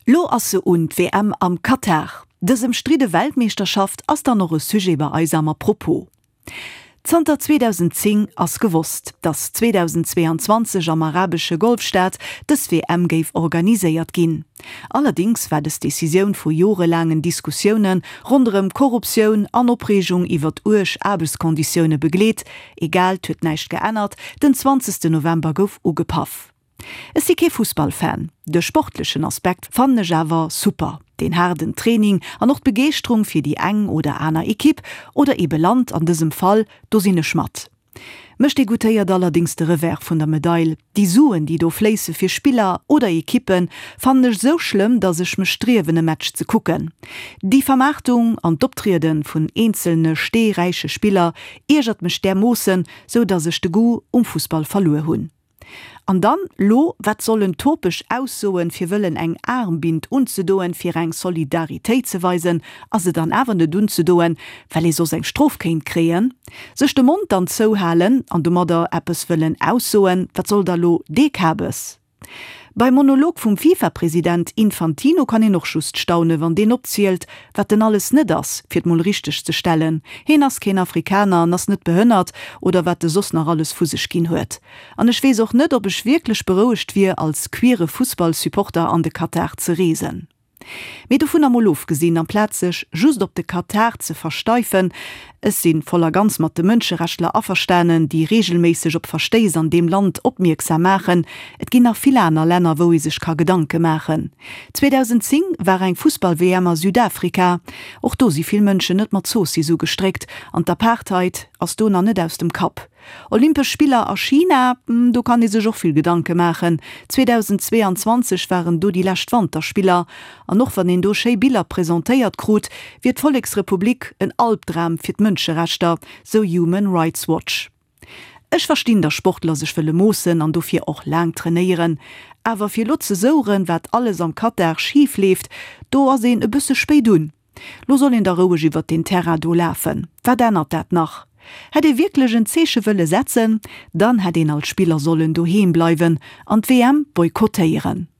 Lo ass se un, d'WM am Katar. Dës ëmstridde Weltmeeschterschaft ass dann och e Sujet bei eis am Apropos. Zanter 2010 ass gewosst, datt 2022 am arabesche Golfstaat dës WM géif organiséiert ginn. Allerdéngs war dës Decisioun vu jorelaangen Diskussioune ronderëm Korruptioun an Opreegung iwwert uerg Aarbechtskonditioune begleet. Egal, 't huet näischt geännert, den 20 November gouf ugepaff. Ech si kee Fussballfan, de sportlechen Aspekt fannen ech awer super, deen haarden Training an och d'Begeeschterung fir déi eng oder aner Ekipp oder ebe Land an dësem Fall, do sinn ech mat. Mech degoutéiert allerdéngs de Revers vun der Medail, déi Suen déi do fléisse fir Spiller oder Ekippen fannen ech sou schlëmm, dass ech mech striewen e Match ze kucken. Déi Vermaartung an d'Optriede vun eenzelne steeräiche Spiller iergert mech därmoossen, sou dass ech de Goût um Fussball verluer hunn. An dann lo, wat sollen topeg Aussoen fir wëllen eng Aarmbind unzedoen fir eng Solidaritéit ze weisen a se dann awer net unzedoen, well ee soss eng Strof kéint kréien? Sech de Mond dann zouhalen an domadder eppes wëllen aussoen, wat soll da lo dee Kabes? Beim Monolog vum FIFA-President Infantino kann een och just staunen, wann deen opzielt, wat en alles net ass, fir et mol richteg ze stellen, heen ass keen Afrikaner an ass net behënnert oder wat e soss nach alles vu sech ginn huet. An ech weess och net, ob ech wierklech berouegt wier, als queere Fussball-Supporter an de Katar ze reesen. Mee dovunner mol ofgesinn, amplaz sech just op de Katar ze versteifen, ech si voll a ganz mat de Mënscherechtler averstanen, déi reegelméisseg op Verstéiss an deem Land opmierksam maachen, et ginn nach vill aner Länner, wou ee sech ka Gedanke maachen. 2010 war eng Fussball-WM a Südafrika, och do si vill Mënschen net mat Zoossiss ugestréckt an d'Apartheid ass do nach net aus dem Kapp. Olympesch Spiller a China, do kann ee sech och vill Gedanke maachen. 2022 waren do déi lescht Wanterspiller an och wann een do schéi Biller presentéiert krut, wier d'Volleksrepublik en Albdram fir d'Mënscherechter, sou Human Rights Watch. Ech verstinn, datt Sportler sech wëlle moossen an dofir och laang trainéieren, awer fir lo ze soueren, wat alles am Katar schif leeft, do ass een e bësse spéit un. Lo soll een da roueg iwwert deen Terrain do lafen. Wat ännert dat nach? Hätt ee wierklech en Zeeche wëlle setzen, dann hätt een als Spiller sollen doheem bleiwen an d'WM boykottéieren.